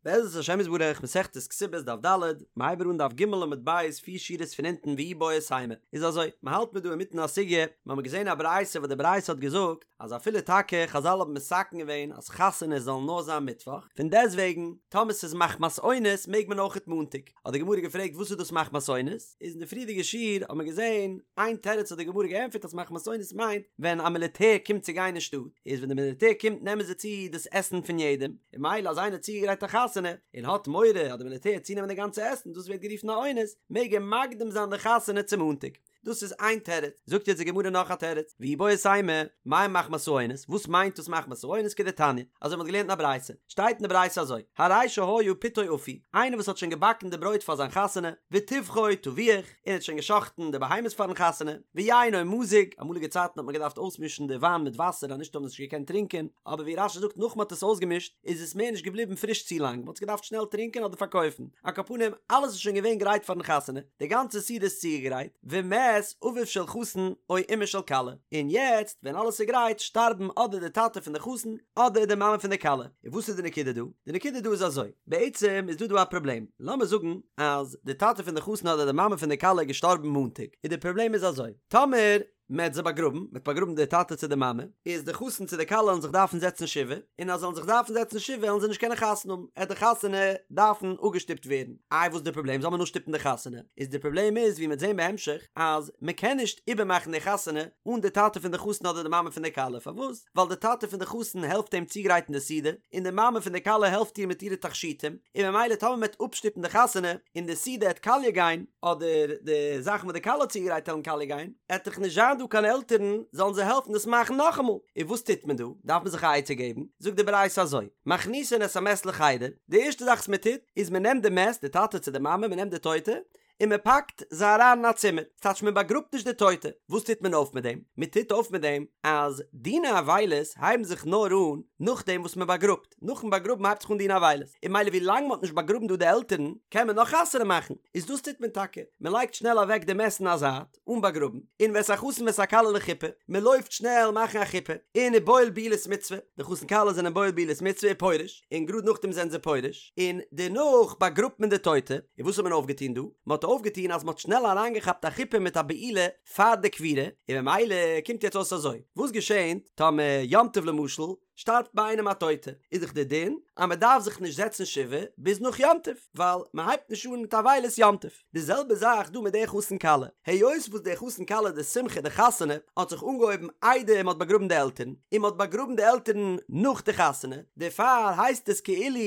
בעזרת השם יתברך, מסכת כתובות דף ד', מ'הייבט אן דף ג' עמוד ב', פיר שורות פון אונטן ואיבעית אימא. איז אזוי, מ'האלט מיר דא אינמיטן א סוגיא, מ'האמיר געזען א ברייתא וואס די ברייתא האט געזאגט אז אפילו טאקע חזל האבן מתקן געווען אז חתונות זאלן נאר זיין מיטוואך, פון דעסטוועגן טאמער ס'איז מחמת אונס מעג מען אויכעט מאנטאג. האט די גמרא געפרעגט וואס איז דאס מחמת אונס? איז אין די פריערדיגע שיעור האט מען געזען איין תירוץ האט די גמרא געענטפערט אז מחמת אונס מיינט ווען א מיליטער קומט צו גיין אין שטאט, איז ווען די מיליטער קומט נעמען זיי צו דאס עסן פון יעדעם, און ממילא אז איינער האט צוגעגרייט א חתונה און האט מורא אז די מיליטער וועט צונעמען די גאנצע עסן דאס ווערט גערופן א אונס, מעג ער מקדים זיין די חתונה צו מאנטאג. דאס איז איין תירוץ. זאגט יעצט די גמרא נאך א תירוץ, ואיבעית אימא, מאי מחמת האונס, וואס מיינט דאס מחמת האונס כדתניא, אזוי מ'האט געלערנט אין א ברייתא, שטייט אין די ברייתא אזוי, הרי שהיה פתו אפוי, איינער וואס האט שוין געבאקן די ברויט פאר זיין חתונה, וטבחו טבוח, און האט שוין גע'שחט'ן די בהמות פאר'ן חתונה, ויינו מזוג, אמאליגע צייטן האט מען געדארפט אויסמישן די וויין מיט וואסער אז נישט האט מען עס נישט געקענט טרינקען, אבער ווי רש"י זאגט נאך מען האט עס אויסגעמישט איז עס מער נישט געבליבן פריש צו לאנג, מען האט עס געדארפט שנעל טרינקען אדער פארקויפן, על כל פנים אלעס איז שוין געווען גרייט פאר'ן חתונה, די גאנצע סעודה איז צוגעגרייט, ומת אביו של חתן או אמה של כלה, און יעצט ווען אלעס איז גרייט שטארבן אדער די טאטע פון די חתן אדער די מאמע פון די כלה, און וואס איז די נקודה דא? די נקודה דא איז אזוי, בעצם איז דא דא א פראבלעם, לאמיר זאגן אז די טאטע פון די חתן אדער די מאמע פון די כלה איז געשטארבן מאנטאג, און די פראבלעם איז אזוי, טאמער מען האט זיי באגראבן, מען האט באגראבן די טאטע צו די מאמע, איז די חתן צו די כלה וועלן זיך דארפן זעצן שבעה, און אז זיי וועלן זיך דארפן זעצן שבעה וועלן זיי נישט קענען חתונה האבן, עט די חתונה דארפן אפגעשטופט ווערן. איי וואס איז די פראבלעם, זאל מען אפשטופן די חתונה? איז די פראבלעם איז ווי מען וועט זען בהמשך, אז מען קען נישט איבערמאכן די חתונה אן די טאטע פון די חתן אדער די מאמע פון די כלה, פארוואס? ווייל די טאטע פון די חתן העלפט אים צוגרייטן די סעודה, און די מאמע פון די כלה העלפט איר מיט אירע תכשיטים, און ממילא טאמער מען וועט אפשטופן די חתונה, און די סעודה העט קאליע גיין, אדער די זאכן וואס די כלה האט צוגעגרייט העלן קאליע גיין, עט דאך נישט זיין דא קיין עלטערן זאלן זיי העלפן דאס מאכן נאכאמאל. און וואס טוט מען דא? דארף מען זיך א עצה געבן? זאגט די ברייתא אזוי, מכניסין את המת לחדר, די ערשטע זאך וואס מען טוט, איז מען נעמט די מת, די טאטע צו די מאמע, מען נעמט די טויטע, און מען פאקט זיי אריין אין א צימער, ס'טייטש מען באגראבט נישט די טויטע, וואס טוט מען אויף מיט דעם? מען טוט אויף מיט דעם אז דיני אבילות הייבן זיך נאר אן נאכדעם וואס מען באגראבט, נאכן באגראבן הייבט זיך אן דיני אבילות, און ממילא ווי לאנג מען האט נישט באגראבן דא די עלטערן קען מען נאך חתונה מאכן, איז דאס טוט מען טאקע, מען לייגט שנעל אוועק די מת אין א זייט, אן באגראבן, און ואת החתן ואת הכלה לחופה, מען לויפט שנעל מאכן א חופה, און ובועל בעילת מצוה, די חתן כלה זענען בועל בעילת מצוה ופורש, און גראד נאכדעם זענען זיי פורש, און דערנאך באגראבט מען די טויטע, און וואס האט מען אויפגעטון דא? מען האט אויפגעטון אז מען האט שנעל אריינגעכאפט א חופה מיט א בעילה פאר די קבורה, און ממילא קומט יעצט אויס אזוי, וואס געשענט טאמער יום טוב למשל שטארבט ביי איינעם א טויטע, איז דאך די דין אז מען דארף זיך נישט זעצן שבעה ביז נאך יום טוב, ווייל מען הייבט נישט אן מיט אבילות יום טוב. די זעלבע זאך דא מיט די חתן כלה, היות וואס די חתן כלה די שמחה די חתונה האט זיך אנגעהויבן איידער מען האט באגראבן די עלטערן, און מען האט באגראבן די עלטערן נאך די חתונה, דערפאר הייסט עס כאילו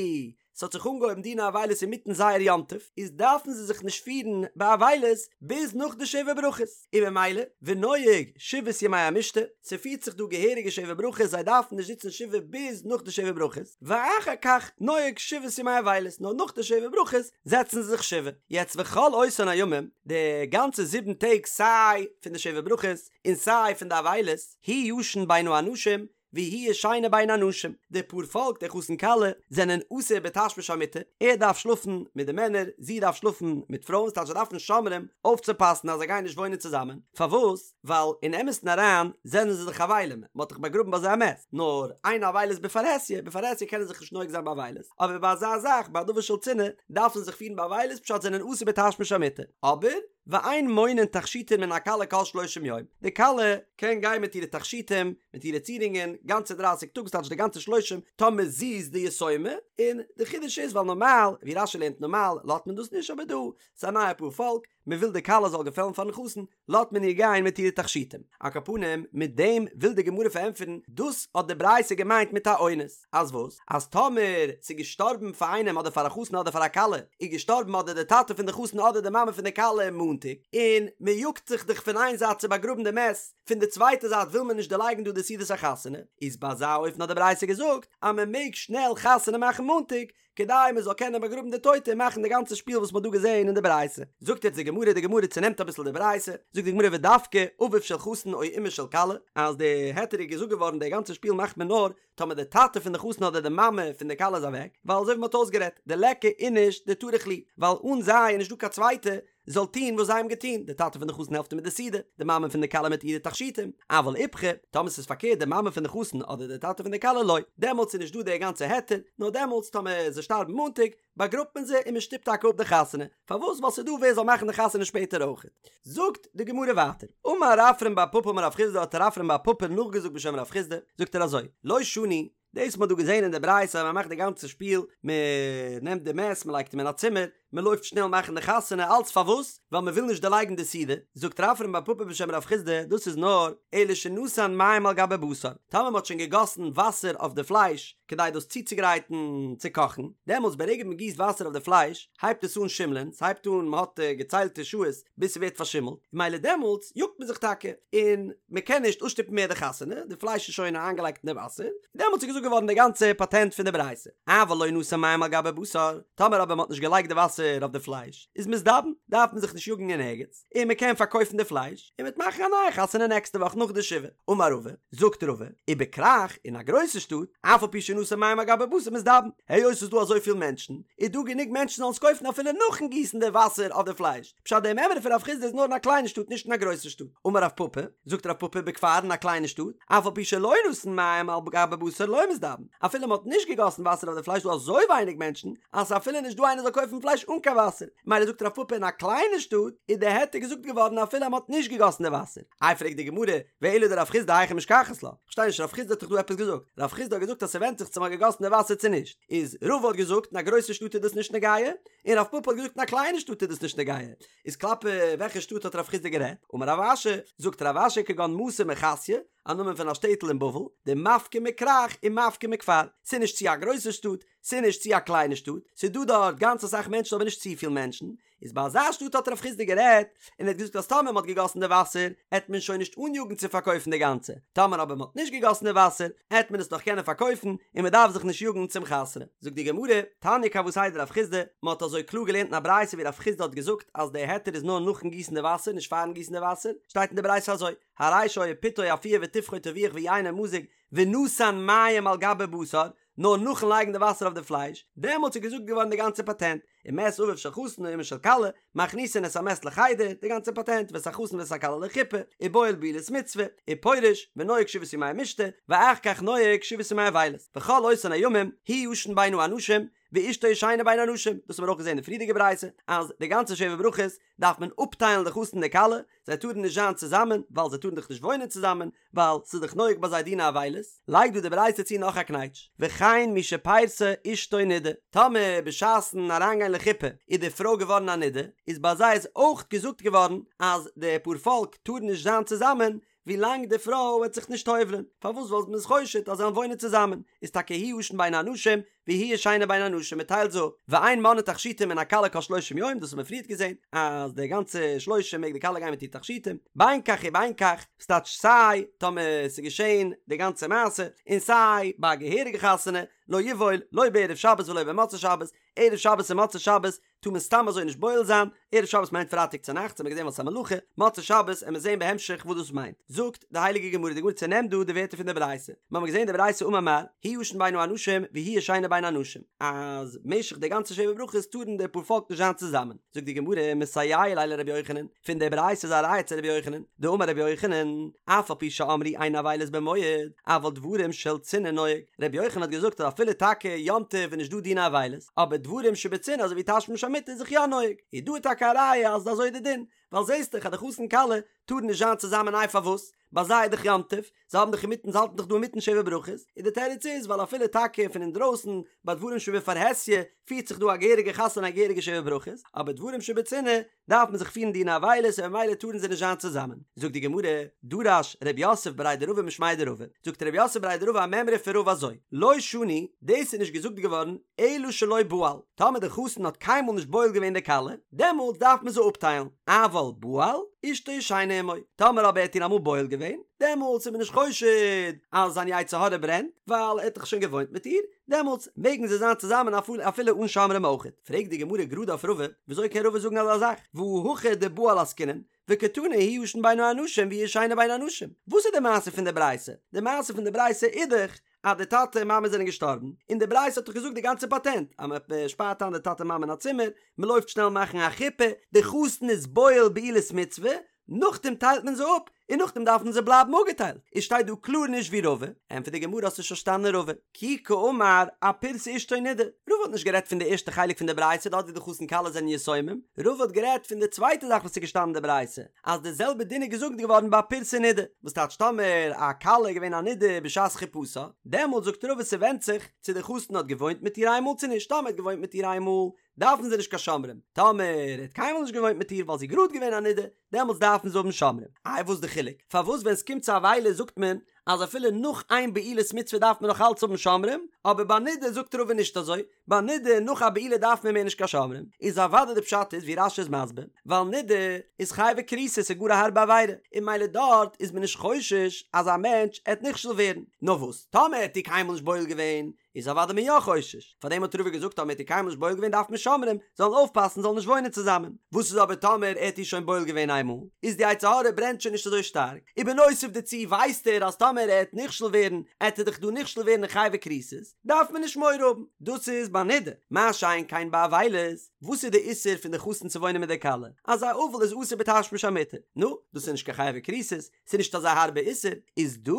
ס'האט זיך אנגעהויבן דיני אבילות אינמיטן זייער יום טוב, איז דארפן זיי זיך נישט פירן באבילות ביז נאך די שבע ברכות, און ממילא ונוהג שבעת ימי המשתה, ס'פירט זיך דא געהעריגע שבע ברכות זיי דארפן נישט זיצן שבעה ביז נאך די שבע ברכות, ואחר כך נוהג שבעת ימי אבילות, נאר נאך די שבע ברכות זעצן זיי זיך שבעה. יעצט וכל אותן הימים, די גאנצע זיבן טעג סיי פון די שבע ברכות און סיי פון די אבילות, הוא ישן בין האנשים והיא ישנה בין הנשים, די פאר פאלק די חתן כלה זענען אסור בתשמיש המיטה, ער דארף שלאפן מיט די מענער, זי דארף שלאפן מיט פרויען, ס'טייטש זיי דארפן שומרים אויפצופאסן אז זיי גייען נישט וואוינען צוזאמען, פארוואס? ווייל אין אמת'ן אריין זענען זיי דאך אבלים, מען האט דאך באגראבן ביי זיי א מת, נאר אין אבילות בפרהסיא, בפרהסיא קענען זיך נישט נוהג זיין באבילות, אבער ביי אזא זאך ביי א דבר של צנעה דארף מען זיך פירן באבילות פשט זענען אסור בתשמיש המיטה, אבער ואין מונין תכשיטין מן הכלה כל שלושים יום, די כלה קען גיין מיט אירע תכשיטים, מיט אירע צירונגען, גאנצע דרייסיג טאג, ס'טייטש די גאנצע שלושים, טאמער זי איז די יתומה, און די חידוש איז ווייל נארמאל, ווי רש"י לערנט נארמאל לאזט מען דאס נישט אבער דא, ס'איז א נייע פאר פאלק, מען וויל די כלה זאל געפעלן פארן חתן, לאזט מען איר גיין מיט אירע תכשיטים. על כל פנים, מיט דעם וויל די גמרא פארענטפערן, דאס האט די ברייתא געמיינט מיט א אונס, אז וואס? אז טאמער ס'איז געשטארבן פאר איינעם אדער פאר א חתן אדער פאר א כלה, איז געשטארבן אדער די טאטע פון די חתן אדער די מאמע פון די כלה מאנטאג, און מען יאגט זיך דאך פון איין זייט צו באגראבן די מת, פון די צווייטע זייט וויל מען נישט דערלייגן דא די סעודת החתונה, איז ביי אזא אופן האט די ברייתא געזאגט אז מען מעג שנעל חתונה מאכן מאנטאג, כדי מען זאל קענען באגראבן די טויטע און מאכן די גאנצע שפיל וואס מען האט דא געזען אין די ברייתא. זאגט יעצט די גמרא, די גמרא צונעמט אביסל די ברייתא, זאגט די גמרא ודווקא אביו של חתן או אמה של כלה, אז די היתר איז געזאגט געווארן די גאנצע שפיל מאכט מען נאר טאמער די טאטע פון די חתן אדער די מאמע פון די כלה איז אוועק, ווייל אזוי ווי מען האט אויסגערעדט, דליכא איניש דטרח להו, ווייל אן זיי איז נישט דא קיין צווייטע. זאל טון וואס זיי האבן געטון, די טאטע פון די חתן העלפט איר מיט די סעודה, די מאמע פון די כלה מיט אירע תכשיטים, אבל איפכא, טאמער ס'איז פארקערט די מאמע פון די חתן אדער די טאטע פון די כלה לא, דעמאלטס איז נישט דא די גאנצע היתר, נאר דעמאלטס טאמער זיי שטארבן מאנטאג, באגראבט מען זיי און מען שטופט טאקע אפ די חתונה, פארוואס? ווייל ס'איז דא ווער זאל מאכן די חתונה שפעטער אויכעט. זאגט די גמרא ווייטער, אמר רפרם בר פפא אמר רב חסדא האט רפרם בר פפא נאכגעזאגט בשם רב חסדא, זאגט ער אזוי, לא שנו, דאס מ'האט דא געזען אין די ברייתא אז מ'מאכט די גאנצע שפיל, מ'נעמט די מת מ'לייגט אים אין א צימער, מ'לויפט שנעל מאכן די חתונה, אלץ פארוואס? ווייל מ'וויל נישט דערלייגן די סעודה, זאגט רפרם בר פפא בשם רב חסדא, דאס איז נאר, אלא שנתן מים על גבי בשר, טאמער מ'האט שוין געגאסן וואסער אויף די פלייש, כדי דאס צוצוגרייטן צו קאכן, דעמאלטס ברגע מ'גיסט וואסער אויף די פלייש, הייבט עס אן שימלען, ס'הייבט אן, מ'האט געציילטע שעות ביז ס'ווערט פארשימלט, ממילא דעמאלטס יאגט מען זיך טאקע, און מ'קען נישט אפשטופן מער די חתונה, די פלייש איז שוין איינגעלייגט אין די וואסער, דעמאלטס איז געזאגט געווארן די גאנצע פאטענט פון די ברייתא, אבל לא נתן מים על גבי בשר, טאמער אבער מ'האט נישט געלייגט די וואסער אויף די פלייש, איז מזדבן, דארף מען זיך נישט יאגן אין ערגעץ, און מ'קען פארקויפן די פלייש, און מ'וועט מאכן א נייע חתונה נעקסטע וואך נאך די שבעה. אמר רבא, זאגט רבא, ובכרך, אין א גרויסע שטאט, אף על פי שנתן מים על גבי בשר מזדבן, היות ס'איז דא אזויפיל מענטשן, איז דא גענוג מענטשן זאלן עס קויפן אפילו נאכן גיסן די וואסער אויף די פלייש, פשט די מימרא פון רב חסדא איז נאר אין א קליינע שטאט נישט אין א גרויסע שטאט. אמר רב פפא, זאגט רב פפא בכפר אין א קליינע שטאט, אף על פי שלא נתן מים על גבי בשר לא מזדבן, אפילו מ'האט נישט געגאסן וואסער אויף די פלייש איז דא אזוי ווייניג מענטשן, אז ס'איז אפילו נישט דא איינער זאל קויפן פלייש אן קיין וואסער, מילא זאגט רב פפא אין א קליינע שטאט איז די היתר געזאגט געווארן אפילו אז מ'האט נישט געגאסן די וואסער. איי פרעגט די גמרא, ואלא דרב חסדא היכי משכחת לה? כ'פארשטיי נישט רב חסדא האט דאך דא עפעס געזאגט, רב חסדא האט געזאגט אז ס'ווענדט זיך צו מ'האט געגאסן די וואסער צו נישט, איז רבא האט געזאגט אין א גרויסע שטאט איז דאס נישט נוגע, און רב פפא האט געזאגט אין א קליינע שטאט איז דאס נישט נוגע, איז כלפי וועלכע שטאט האט רב חסדא גערעדט? אמר רב אשי, זאגט רב אשי כגון מתא מחסיא, א נאמען פון א שטעטל אין בבל, דמפקא מכרך ומפקא מכפר, ס'איז נישט צו א גרויסע שטאט, ס'איז נישט צו א קליינע שטאט, ס'איז דא דארט גאנץ אסאך מענטשן אבער נישט צופיל מענטשן, איז ביי אזא שטאט האט רב חסדא גערעדט, און ער האט געזאגט אז טאמער מ'האט געגאסן די וואסער, עט מען שוין נישט אניאגן צו פארקויפן די גאנצע, טאמער אבער מ'האט נישט געגאסן די וואסער, עט מען עס נאך קענען פארקויפן, און מ'דארף זיך נישט יאגן צום חתונה. זאגט די גמרא, תניא כוותיה דרב חסדא, מ'האט אזוי קלאר געלערנט אין א ברייתא ווי רב חסדא האט געזאגט אז די היתר איז נאר נאכן גיסן די וואסער נישט פארן גיסן די וואסער, שטייט אין די ברייתא אזוי, הרי שהיה פתו אפוי וטבחו טבוח ויינו מזוג ונתן מים על גבי בשר, נאר נאכן לייגן די וואסער אויף די פלייש, דעמאלטס איז געזאגט געווארן די גאנצע פאטענט, ומת אביו של חתן או אמה של כלה, מכניסין את המת לחדר, די גאנצע פאטענט, ואת החתן ואת הכלה לחופה, ובועל בעילת מצוה, ופורש, ונוהג שבעת ימי המשתה, ואחר כך נוהג שבעת ימי אבילות, וכל אותן הימים, הוא ישן בין האנשים, ואשתו ישנה בין הנשים, דאס האבן מיר אויך געזען אין די פריערדיגע ברייתא, אז די גאנצע שבע ברכות דארף מען אפטיילן די חתן און די כלה, זיי טארן נישט זיין צוזאמען, ווייל זיי טארן דאך נישט וואוינען צוזאמען, ווייל ס'איז דאך נוהג ביי זיי דיני אבילות, לייגט דא די ברייתא צו נאך א קנייטש, וכן מי שפירסה אשתו נידה, טאמער בשעת'ן אריינגיין לחופה איז די פרוי געווארן א נידה, איז ביי זיי איז אויך געזאגט געווארן אז די פארפאלק טארן נישט זיין צוזאמען ווילאנג די פרוי וועט זיך נישט טובל'ען, פארוואס ווייל מ'איז חושד אז זיי וועלן וואוינען צוזאמען, איז טאקע הוא ישן בין האנשים והיא ישנה בין הנשים מ'טיילט זיי אפ, ואין מונעין תכשיטים מן הכלה כל שלושים יום, דאס האט מען פריערט געזען אז די גאנצע שלושים מעג די כלה גיין מיט איר תכשיטים, בין כך ובין כך, ס'טייטש סיי טאמער ס'איז געשען די גאנצע מעשה, און סיי ביי א געהעריגע חתונה, לא יבעול, לא בערב שבת ולא במוצאי שבת, ערב שבת און מוצאי שבת טאר מען סתם אזוי נישט בועל זיין, ערב שבת מיינט פרייטאג צונאכטס האט מען געזען ווייל ס'איז א מלאכה, מוצאי שבת עמיר זען בהמשך וואס דאס מיינט, זאגט די הייליגע גמרא, די גמרא צענעמט דא די ווערטער פון די ברייתא, מיר האבן געזען די ברייתא אמר מר, הוא ישן בין האנשים והיא ישנה בין הנשים, אז משך די גאנצע שבע ברכות טארן די פארפאלק נישט זיין צוזאמען, זאגט די גמרא מסייע ליה לרבי יוחנן, פון די ברייתא איז א ראיה צו רבי יוחנן, דאמר רבי יוחנן, אף על פי שאמרו אין אבילות במועד, אבל דברים של צנעה נוהג, רבי יוחנן האט געזאגט אז אפילו טאקע יום טוב איז נישט דא דיני אבילות, אבער דברים שבצנעה אזוי ווי תשמיש המיטה איז זיך יא נוהג, איז דא טאקע א ראיה אז אזוי איז די דין, ווייל זעסט דאך אז די חתן כלה טארן נישט זיין צוזאמען איי פארוואס? ביי זיי איז דאך יום טוב, זיי האבן דאך אינמיטן זיי האלטן דאך דא אינמיטן שבע ברכות, און די תירוץ איז ווייל אפילו טאקע פון אינדרויסן ביי דברים שבפרהסיא פירט זיך דא א געהעריגע חתונה א געהעריגע שבע ברכות, אבער דברים שבצנעה דארף מען זיך פירן דיני אבילות און ממילא טארן זיי נישט זיין צוזאמען. זאגט די גמרא, דרש ר' יוסף בריה דרבא משמיה דרבא, זאגט ר' יוסף בריה דרבא א מימרא פון רבא אזוי, לא שנו, דאס איז נישט געזאגט געווארן אלא שלא בעל, טאמער די חתן האט קיינמאל נישט בועל געווען די כלה, דעמאלטס דארף מען זיי אפטיילן, אבל בעל, אשתו ישנה עמו, טאמער אבער ער האט איר אמאל בועל געווען, דעמאלטס איז מען נישט חושד אז זיין יצר הרע ברענט, ווייל ער האט דאך שוין געוואוינט מיט איר, דעמאלטס מעגן זיי זיין צוזאמען אפילו אן שומרים אויכעט. פרעגט די גמרא גראד אויף רבא, וויאזוי קען רבא זאגן אזא זאך, והא הכא דבעל עסקינן, וקתני הוא ישן בין האנשים והיא ישנה בין הנשים, וואס איז די מעשה פון די ברייתא? די מעשה פון די ברייתא איז דאך אז די טאטע און מאמע זענען געשטארבן, און די ברייתא האט דאך געזאגט די גאנצע פאטענט אז מען שפארט איין די טאטע מאמע אין א צימער, מען לויפט שנעל מאכן א חופה, די חתן איז בועל בעילת מצוה, נאכדעם טיילט מען זיי אפ, און נאכדעם דארפן זיי בלייבן אפגעטיילט, איז שטייט דא קלאר נישט ווי רבא, ענטפערט די גמרא האסט נישט פארשטאנען רבא, כי קאמר אפירסה אשתו נידה, רבא האט נישט גערעדט פון די ערשטע חלק פון די ברייתא דארט ווי די חתן כלה זענען יתומים, רבא האט גערעדט פון די צווייטע זאך וואס איז געשטאנען אין די ברייתא, אז די זעלבע דין איז געזאגט געווארן ביי פירסה נידה, וואס טייטש טאמער א כלה איז געווען א נידה בשעת חופתה, דעמאלט זאגט רבא ס'ווענדט זיך צו די חתן האט געוואוינט מיט איר איינמאל צו נישט, טאמער ער האט געוואוינט מיט איר איינמאל דארפן זיי נישט קיין שומרים, טאמער ער האט קיינמאל נישט געוואוינט מיט איר ווייל זי איז גראד געווען א נידה, דעמאלטס דארפן זיי האבן שומרים. איי וואס די חילוק? פארוואס ווען ס'קומט צו אבילות זאגט מען אז אפילו נאך איין בעילת מצוה דארף מען נאך אלץ האבן שומרים, אבער ביי נידה זאגט רבא נישט אזוי, ביי נידה נאך א בעילה דארף מען מער נישט קיין שומרים, איז אוודאי די פשט איז ווי רש"י איז מסביר, ווייל נידה איז חייבי כריתות ס'איז גאר א הארבע עבירה, און ממילא דארט איז מען נישט חושש אז א מענטש עט נכשל ווערן, נאר וואס טאמער ער האט איר קיינמאל נישט בועל געווען, איז אוודאי מען יא חושש, פארדעם האט רבא געזאגט טאמער האט איר קיינמאל נישט בועל געווען דארף מען שומרים זאלן אויפפאסן זאלן נישט וואוינען צוזאמען, וואס איז אבער טאמער ער האט איר שוין בועל געווען איינמאל, איז די יצר הרע ברענט שוין נישט אזוי שטארק, ובנוסף דערצו ווייסט ער אז טאמער ער העט נכשל ווערן עט ער דאך דא נכשל ווערן אין חייבי כריתות, דארף מען נישט מורא האבן, דאס איז ביי נידה, מה שאין כן ביי אבילות, וואס איז די איסור פון די חתן צו וואוינען מיט די כלה, אז א אבל איז אסור בתשמיש המיטה, נו, דאס איז נישט קיין חייבי כריתות, ס'איז נישט אזא הארבע איסור, איז דא,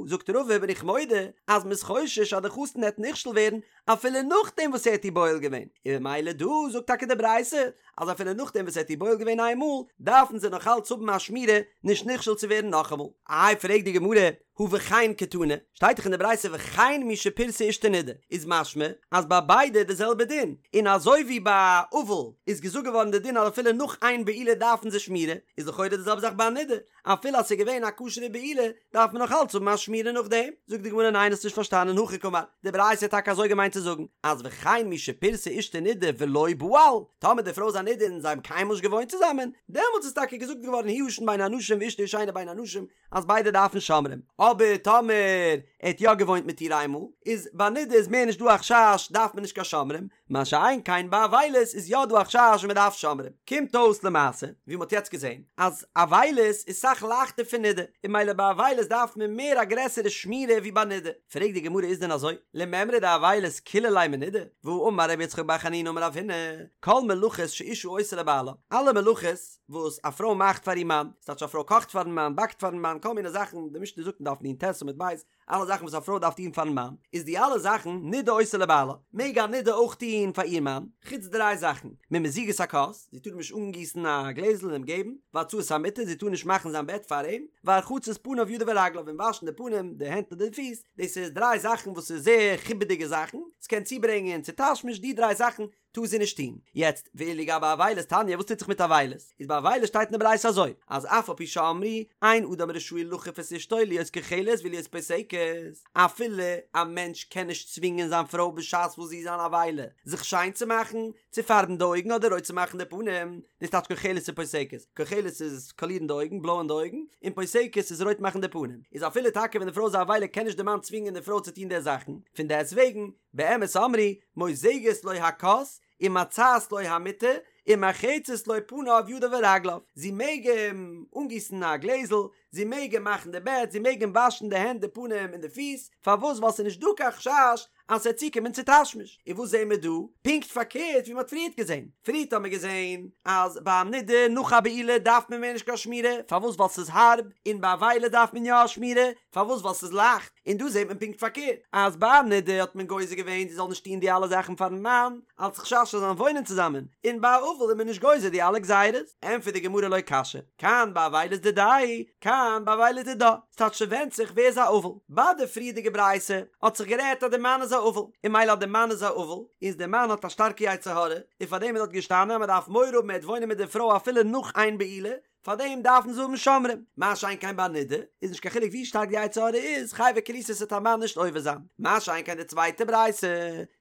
זאגט רבא, בין איך מודה אז מ'איז חושש אז די חתן העט נכשל ווערן אפילו נאכדעם וואס ער האט איר בועל געווען, און ממילא דא זאגט טאקע די ברייתא אז אפילו נאכדעם וואס ער האט איר בועל געווען איין מאל, דארפן זיי נאך אלץ האבן א שמירה נישט נכשל צו ווערן נאכאמאל. איי פרעגט די גמרא, הא וכן קתני, שטייט דאך אין די ברייתא וכן מי שפירסה אשתו נידה, איז משמע אז ביי ביידע איז די זעלבע דין, און אזוי ווי ביי אבל איז געזאגט געווארן די דין אז אפילו נאך איין בעילה דארפן זיי שמירה, איז לכאורה די זעלבע זאך ביי א נידה, אפילו אז ס'איז געווען א כשר'ע בעילה דארף מען נאך אלץ האבן א שמירה נאכדעם. זאגט די גמרא ניין האסט נישט פארשטאנען הכי קאמר, די ברייתא האט טאקע אזוי געמיינט צו זאגן אז וכן מי שפירסה אשתו נידה ולא בעל, טאמער די פרוי איז א נידה און זיי האבן קיינמאל נישט געוואוינט צוזאמען, דעמאלטס איז טאקע געזאגט געווארן הוא ישן בין האנשים ואשתו ישנה בין הנשים אז ביידע דארפן שומרים, אבער טאמער ער האט יא געוואוינט מיט איר איינמאל, איז ביי נידה איז מער נישט דא א חשש דארף מען נישט קיין שומרים, מה שאין כן ביי אבילות איז יא דא א חשש און מען דארף שומרים. קומט אויס למעשה, ווי מען האט יעצט געזען, אז אבילות איז סאך לייכטער פון נידה, און ממילא ביי אבילות דארף מען מער א גרעסערע שמירה ווי ביי נידה. פרעגט די גמרא איז דען אזוי? למימרא דאבילות קילא ליה מנידה? והאמר רבי יצחק בר חנינא אמר רב הונא, כל מלאכות שאשה עושה לבעלה, אלע מלאכות וואס א פרוי מאכט פאר איר מאן, ס'טייטש א פרוי קאכט פארן מאן, באקט פארן מאן, כל מיני זאכן, די משנה זאגט אין דף נ"ט עמוד ב', אלע זאכן וואס א פרוי דארף טון פארן מאן, איז די אלע זאכן נידה עושה לבעלה, מעג א נידה אויך טון פאר איר מאן, חוץ דריי זאכן, ממזיגת הכוס, זי טאר אים נישט אנגיסן א גלעזל און אים געבן, והצעת המיטה, זי טאר נישט מאכן זיין בעט פאר אים, והרחצת פניו ידיו ורגליו, און וואשן די פנים, די הענט און די פיס, דאס איז דריי זאכן וואס איז זייער חיבה'דיגע זאכן, ס'קען צוברענגען צו תשמיש, די דריי זאכן טאר זי נישט טון. יעצט, ואילו גבי אבילות תניא, וואס טוט זיך מיט אבילות? איז ביי אבילות שטייט אין די ברייתא אזוי, אז אף על פי שאמרו, אין אדם רשאי לכוף את אשתו להיות כוחלת ולהיות פוסקת, אפילו א מענטש קען נישט צווינגען זיין פרוי בשעת וואס זי איז אן אבילה, זיך שיין צו מאכן, צו פארבן די אויגן אדער רויט צו מאכן די פנים, דאס טייטש כוחלת און פוסקת, כוחלת איז קאלירן די אויגן, בלויען די אויגן, און פוסקת איז רויט מאכן די פנים. איז אפילו טאקע ווען די פרוי איז א אבילה קען נישט די מאן צווינגען די פרוי צו טון די זאכן, פון דעסט וועגן, באמת אמרו, מוזגת לו הכוס, ומצעת לו המיטה, ומרחצת לו פניו ידיו ורגליו, זי מעג אים אנגיסן א גלעזל, זי מעג אים מאכן די בעט, זי מעג אים וואשן די הענט די פנים און די פיס, פארוואס ווייל ס'איז נישט דא קיין חשש אז ס'וועט צוקומען צו תשמיש, און וואס זעהן מיר דא? פונקט פארקערט ווי מ'האט פריערט געזעהן, פריערט האט מען געזעהן אז ביי א נידה נאך א בעילה דארף מען מער נישט קיין שמירה, פארוואס ווייל ס'איז הארב, און ביי אבילות דארף מען יא א שמירה, פארוואס ווייל ס'איז לייכט, און דא זעט מען פונקט פארקערט, אז ביי א נידה האט מען גוזר געווען זי זאל נישט טון די אלע זאכן פארן מאן, אלס חשש זיי זאלן וואוינען צוזאמען, און ביי א אבל איז מען נישט גוזר די אלע גזירות. ענטפערט די גמרא לא קשיא, כאן באבילות דידיה, כאן באבילות דידה, ס'טייטש ס'ווענדט זיך ווער איז א אבל. ביי די פריערדיגע ברייתא האט זיך גערעדט אז די מאן איז א אבל, און ממילא אז די מאן איז א אבל, איז די מאן האט א שטארקע יצר הרע, און פארדעם איז דארט געשטאנען אז מ'דארף מורא האבן ער וועט וואוינען מיט די פרוי אפילו נאך איין בעילה, פאר דעם דארפן זיי האבן שומרים, מה שאין כן ביי נידה, איז נישט קיין חילוק ווי שטארק די יצר הרע איז, חייבי כריתות וועט א מאן נישט עובר זיין, מה שאין כן די צווייטע ברייתא,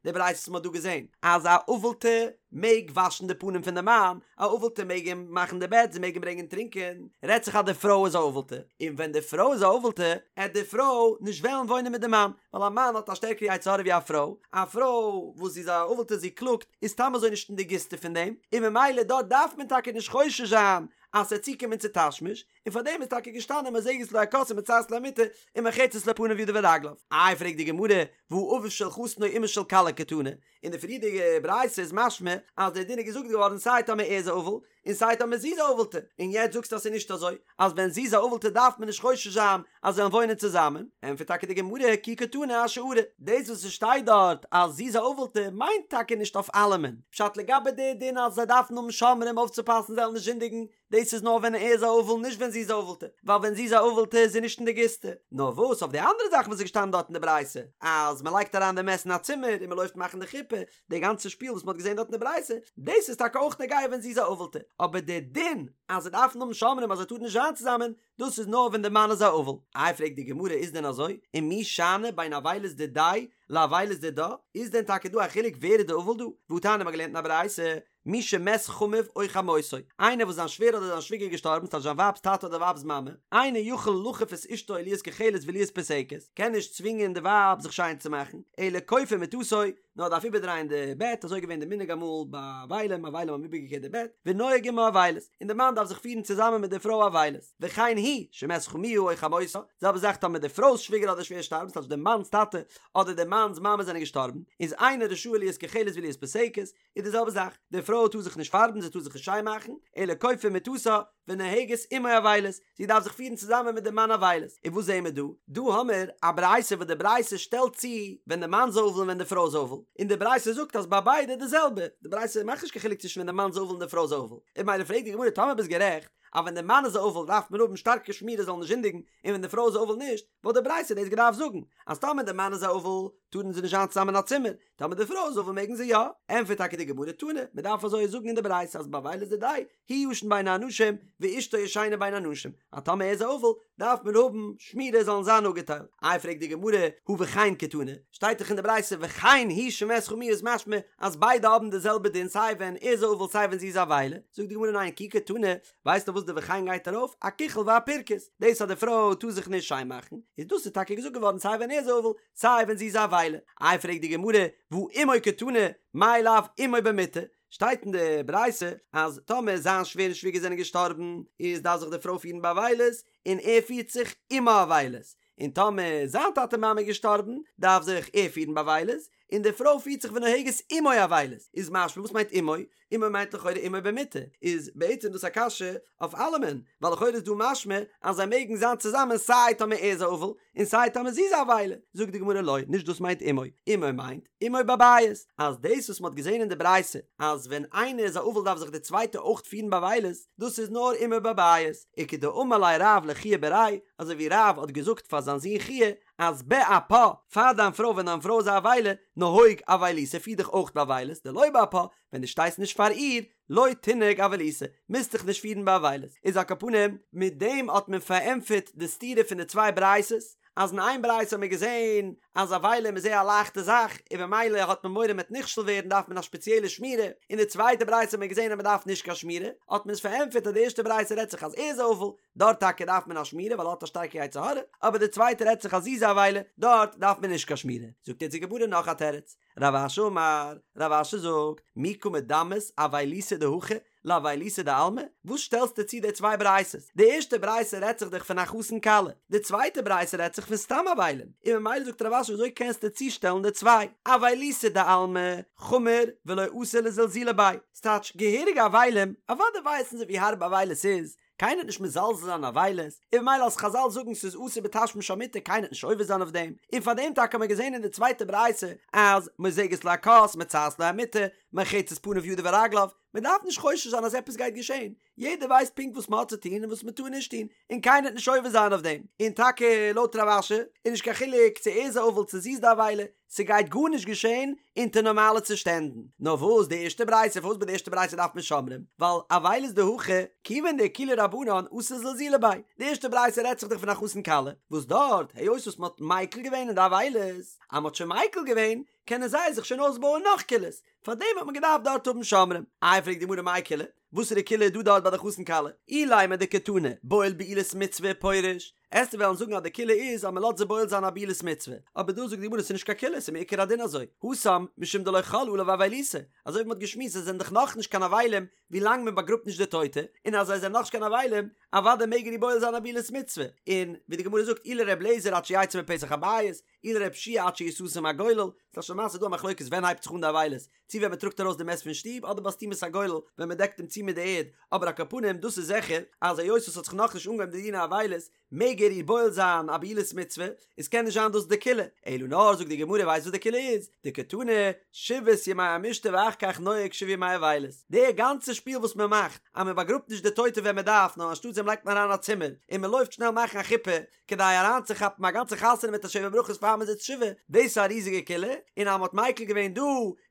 די ברייתא וואס מען האט דא געזען, אז א אבל'טע מעג וואשן די פנים פון די מאן, א אבל'טע מעג אים מאכן די בעט, זי מעג אים ברענגען טרינקען, רעדט זיך אז די פרוי איז א אבל'טע, און ווען די פרוי איז א אבל'טע, עט די פרוי נישט וועלן וואוינען מיט די מאן, ווייל א מאן האט א שטערקערע יצר הרע ווי א פרוי, א פרוי וואס זי איז א אבל'טע זי קלאגט, איז סתם אזוי נישט אין די גיסטע פון דעם, און ממילא דארט דארף מען טאקע נישט חושש זיין אז ס'וועט צוקומען צו תשמיש, און פאר דעם איז טאקע געשטאנען מוזגת לו הכוס ומצעת לו המטה ומרחצת לו פניו ידיו ורגליו. איי פרעגט די גמרא, והא אביו של חתן או אמה של כלה קתני, אין די פריערדיגע ברייתא איז משמע אז דער דין איז געזאגט געווארן סיי טאמער ער איז א אבל און סיי טאמער זי איז א אבל'טע, און יעצט זאגסטו אז ס'איז נישט אזוי, אז ווען זי איז א אבל'טע דארף מען נישט חושש זיין אז זיי וועלן וואוינען צוזאמען, ענטפערט טאקע די גמרא כי קתני אשארא, דאס וואס ס'שטייט דארט אז זי איז א אבל'טע מיינט טאקע נישט אויף אלעמען, פשט לגבי די דין אז זיי דארפן האבן שומרים אויפצופאסן זיי זאלן נישט זינדיגן, דאס איז נאר ווען ער איז א אבל נישט ווען זי איז א אבל'טע, ווייל ווען זי איז א אבל'טע איז זי נישט אין די גיסטע. נאר וואס אויף די אנדערע זאכן וואס איז געשטאנען דארט אין די ברייתא, אז מען לייגט אריין די מת אין א צימער און מען לויפט מאכן די חופה, די גאנצע שפיל וואס מען האט געזען דארט אין די ברייתא, דאס איז טאקע אויך נוגע ווען זי איז א אבל'טע, אבער די דין אז זיי דארפן האבן שומרים אז זיי טארן נישט זיין צוזאמען, דאס איז נאר ווען די מאן איז א אבל. איי פרעגט די גמרא איז דען אזוי? ומי שאני בין אבילות דידיה לאבילות דידה? איז דען טאקע דא א חילוק ווער איז די אבל דא? והתניא מ'האט געלערנט אין א ברייתא, מי שמת חמיו או חמותו, איינער וואס זיין שווער אדער זיין שוויגער געשטארבן, ס'טייטש זיין ווייב'ס טאטע אדער ווייב'ס מאמע, אינו יכול לכוף את אשתו להיות כוחלת ולהיות פוסקת, קען נישט צווינגען די ווייב זיך שיין צו מאכן, אלא כופה מטתו, נאר דארף איבערדרייען די בעט, אזוי איז געווען די מנהג אמאל ביי אבלים, אבלים האבן איבערגעקערט די בעט, ונוהג עמה אבילות, און די מאן דארף זיך פירן צוזאמען מיט די פרוי אבילות, וכן היא, שמת חמיה או חמותה, זעלבע זאך טאמער די פרוי'ס שוויגער אדער שווער שטארבן, ס'טייטש די מאנ'ס טאטע אדער די מאנ'ס מאמע זענען געשטארבן, איז אינה רשאה להיות כוחלת ולהיות פוסקת, איז די זעלבע זאך, די פרוי טאר זיך נישט פארבן, זי טאר זיך נישט שיין מאכן, אלא כופה מטתה ונוהגת עמו אבילות, זי דארף זיך פירן צוזאמען מיט די מאן אבילות, און וואס זעהן מיר דא? דא האמיר א ברייתא וואס די ברייתא שטעלט צו ווען די מאן איז אבל און ווען די פרוי איז אבל, און די ברייתא זאגט אז ביי ביידע די זעלבע, די ברייתא מאכט נישט קיין חילוק צווישן ווען די מאן איז אבל און די פרוי איז אבל, און ממילא פרעגט די גמרא טאמער ביסט גערעכט אז ווען די מאן איז אבל דארף מען האבן שטארקע שמירה זאל נישט זינדיגן, און ווען די פרוי איז אבל נישט, וואלט די ברייתא דאס געדארפט זאגן אז טאמער די מאן איז א אבל טארן זיי נישט זיין צוזאמען אין א צימער, טאמער די פרוי איז אבל מעגן זיי יא? ענטפערט טאקע די גמרא תנא, מען דארף אזוי זאגן אין די ברייתא אז באבילות דידיה הוא ישן בין האנשים ואשתו ישנה בין הנשים, אז טאמער ער איז א אבל דארף מען האבן שמירה זאלן זיין אפגעטיילט. איי פרעגט די גמרא הא וכן קתני, שטייט דאך אין די ברייתא וכן היא שמת חמיה איז משמע אז ביידע האבן די זעלבע דין סיי ווען ער איז א אבל סיי ווען זי איז א אבילה, זאגט די גמרא ניין כי קתני, ווייסטו וואס די וכן גייט ארויף? אכיחול ואפירכוס, דאס אז די פרוי טאר זיך נישט שיין מאכן, איז דאס איז טאקע געזאגט געווארן סיי ווען ער איז אבל סיי ווען זי איז א אבילה. איי פרעגט די גמרא, והא עמו קתני, מאי לאו עמו במיטה? שטייט אין די ברייתא אז טאמער זיין שווער און שוויגער זענען געשטארבן, איז דארף זיך די פרוי פירן באבילות, און ער פירט זיך עמה אבילות, און טאמער זיין טאטע מאמע איז געשטארבן, דארף זיך ער פירן באבילות, און די פרוי פירט זיך ונוהגת עמו אבילות, איז משמע וואס מיינט עמו? עמו מיינט לכאורה עמו במיטה, איז בעצם דאס א קשיא אויף אלעמען, ווייל לכאורה איז דא משמע אז זיי מעגן זיין צוזאמען סיי טאמער ער איז א אבל און סיי טאמער זי איז א אבילה, זאגט די גמרא לא, נישט דאס מיינט עמו, עמו מיינט עמו בבית, אז דאס וואס מ'האט געזען אין די ברייתא אז ווען איינער איז א אבל דארף זיך די צווייטע אויך פירן באבילות, דאס איז נאר עמו בבית, וכדאמר ליה רב לחייא בריה, אזוי ווי רב האט געזאגט פאר זיין זון חייא, אז באפה, פאר דיין פרוי ווען דיין פרוי איז א אבילה, נהוג אבילותא פיר דיך אויך באבילות, דלא באפה, ווען דו שטייסט נישט פאר איר, לא תנהוג אבילותא, מוזט דיך נישט פירן באבילות. איז על כל פנים, מיט דעם האט מען פארענטפערט די סתירה פון די צוויי ברייתות, אז אין איין ברייתא האט מען געזען אז אבלים איז זייער א לייכטע זאך און במילא האט מען מורא מ'וועט נכשל ווערן דארף מען א שפעציעלע שמירה, אין די צווייטע ברייתא האט מען געזען אז מען דארף נישט קיין שמירה, האט מען עס פארענטפערט אז די ערשטע ברייתא רעדט זיך אז ער איז א אבל, דארט טאקע דארף מען א שמירה ווייל ער האט א שטארקע יצר הרע, אבער די צווייטע רעדט זיך אז זי איז א אבילה, דארט דארף מען נישט קיין שמירה. זאגט יעצט די גמרא נאך א תירוץ, רב אשי אמר, רב אשי זאגט, מי קא מדמית אבילותא דהכא לאבילותא דעלמא? וואס שטעלסטו צו די צוויי ברייתות? די ערשטע ברייתא רעדט זיך דאך פון א חתן כלה, די צווייטע ברייתא רעדט זיך פון סתם אבלים, און ממילא זאגט רב אשי וויאזוי קענסטו צושטעלן די צוויי? אבילותא דעלמא חמיר ולא אתי לזלזולי ביה, ס'טייטש געהעריגע אבלים, אוודאי ווייסן זיי ווי הארב אבילות איז, קיינער וועט נישט מזלזל זיין אבילות, און ממילא אז חזל זאגן ס'איז אסור בתשמיש המיטה קיינער וועט נישט עובר זיין אויף דעם, און פאר דעם טאקע האט מען געזען אין די צווייטע ברייתא אז מוזגת לו הכוס מצעת לו המיטה מרחצת פניו ידיו ורגליו, מען דארף נישט חושש זיין אז עפעס גייט געשען, יעדער ווייסט פונקט וואס מען האט צו טון און וואס מען טאר נישט טון, און קיינער וועט נישט עובר זיין אויף דעם, און טאקע לויט רב אשי איז נישט קיין חילוק צו ער איז א אבל צו זי איז די אבילה, ס'גייט גארנישט געשען אונטער נארמאלע צושטענדן. נאר וואס די ערשטע ברייתא, פארוואס ביי די ערשטע ברייתא דארף מען שומרים? ווייל אבילות דהכא, כיוון דאקילו רבנן אתי לזלזולי ביה. די ערשטע ברייתא רעדט זיך דאך פון א חתן כלה, וואס דארט, היות וואס מ'האט מיקל געווען אין די אבילות, אז מ'האט שוין מיקל געווען, קענען זיי זיך שוין אויסבויען נאך קולות, פארדעם האט מען געדארפט דארט האבן שומרים. איי פרעגט די גמרא מאי קולא? וואסערע קולא איז דא דארט ביי די חתן כלה? אילימא דקתני, בועל בעילת מצוה ופורש. עסטו וועלן זאגן אז די קולא איז אז מען לאזט זי בועל זיין א בעילת מצוה, אבער דא זאגט די גמרא ס'איז נישט קיין קולא ס'איז מעיקר הדין אזוי, התם משום דלא חל עליו אבילותא, אזוי ווי מען האט געשמועסט זיי זענען דאך נאכנישט קיין אבלים ווי לאנג מען באגראבט נישט די טויטע, און אז זיי זענען נאכנישט קיין אבלים, אוודאי מעג ער איר בועל זיין א בעילת מצוה, און ווי די גמרא זאגט אי לר' אליעזר עד שיצא מפתח הבית, אי לר' יהושע עד שיסתם הגולל, ס'איז למעשה דא א מחלוקת ווען הייבט זיך אן די אבילות, צו ווען מען טראגט ארויס די מת פון שטוב אדער ביי סתימת הגולל ווען מען דעקט אים צו מיט די ערד, אבער על כל פנים דאס איז זיכער אז היות עס האט זיך נאכנישט אנגעהויבן די דיני אבילות מעג ער איר בועל זיין א בעילת מצוה, איז קען נישט זיין דאס די קולא, אלא נאר זאגט די גמרא ווייסט וואס די קולא איז? דקתני שבעת ימי המשתה ואחר כך נוהג שבעה ימי אבילות, די גאנצע שפיל וואס מען מאכט אז מען באגראבט נישט די טויטע ווען מען דארף נאר אנשטאט דעם לייגט מען אריין א צימער און מען לויפט שנעל מאכן א חופה כדי אריינצוכאפן א גאנצע חתונה מיט א שבע ברכות פאר מען זיצט שבעה, דאס איז א ריזיגע קולא, און אז מען האט מיקל געווען דא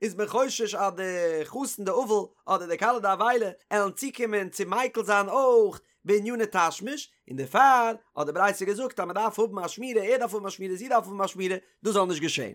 איז מען חושש אז די חתן די אבל אדער די כלה די אבילה עלן צוקומען צו מיקל זיין אויך בעניני תשמיש, און דערפאר האט די ברייתא געזאגט אז מען דארף האבן א שמירה, ער דארף האבן א שמירה, זי דארף האבן א שמירה, דאס זאל נישט געשען.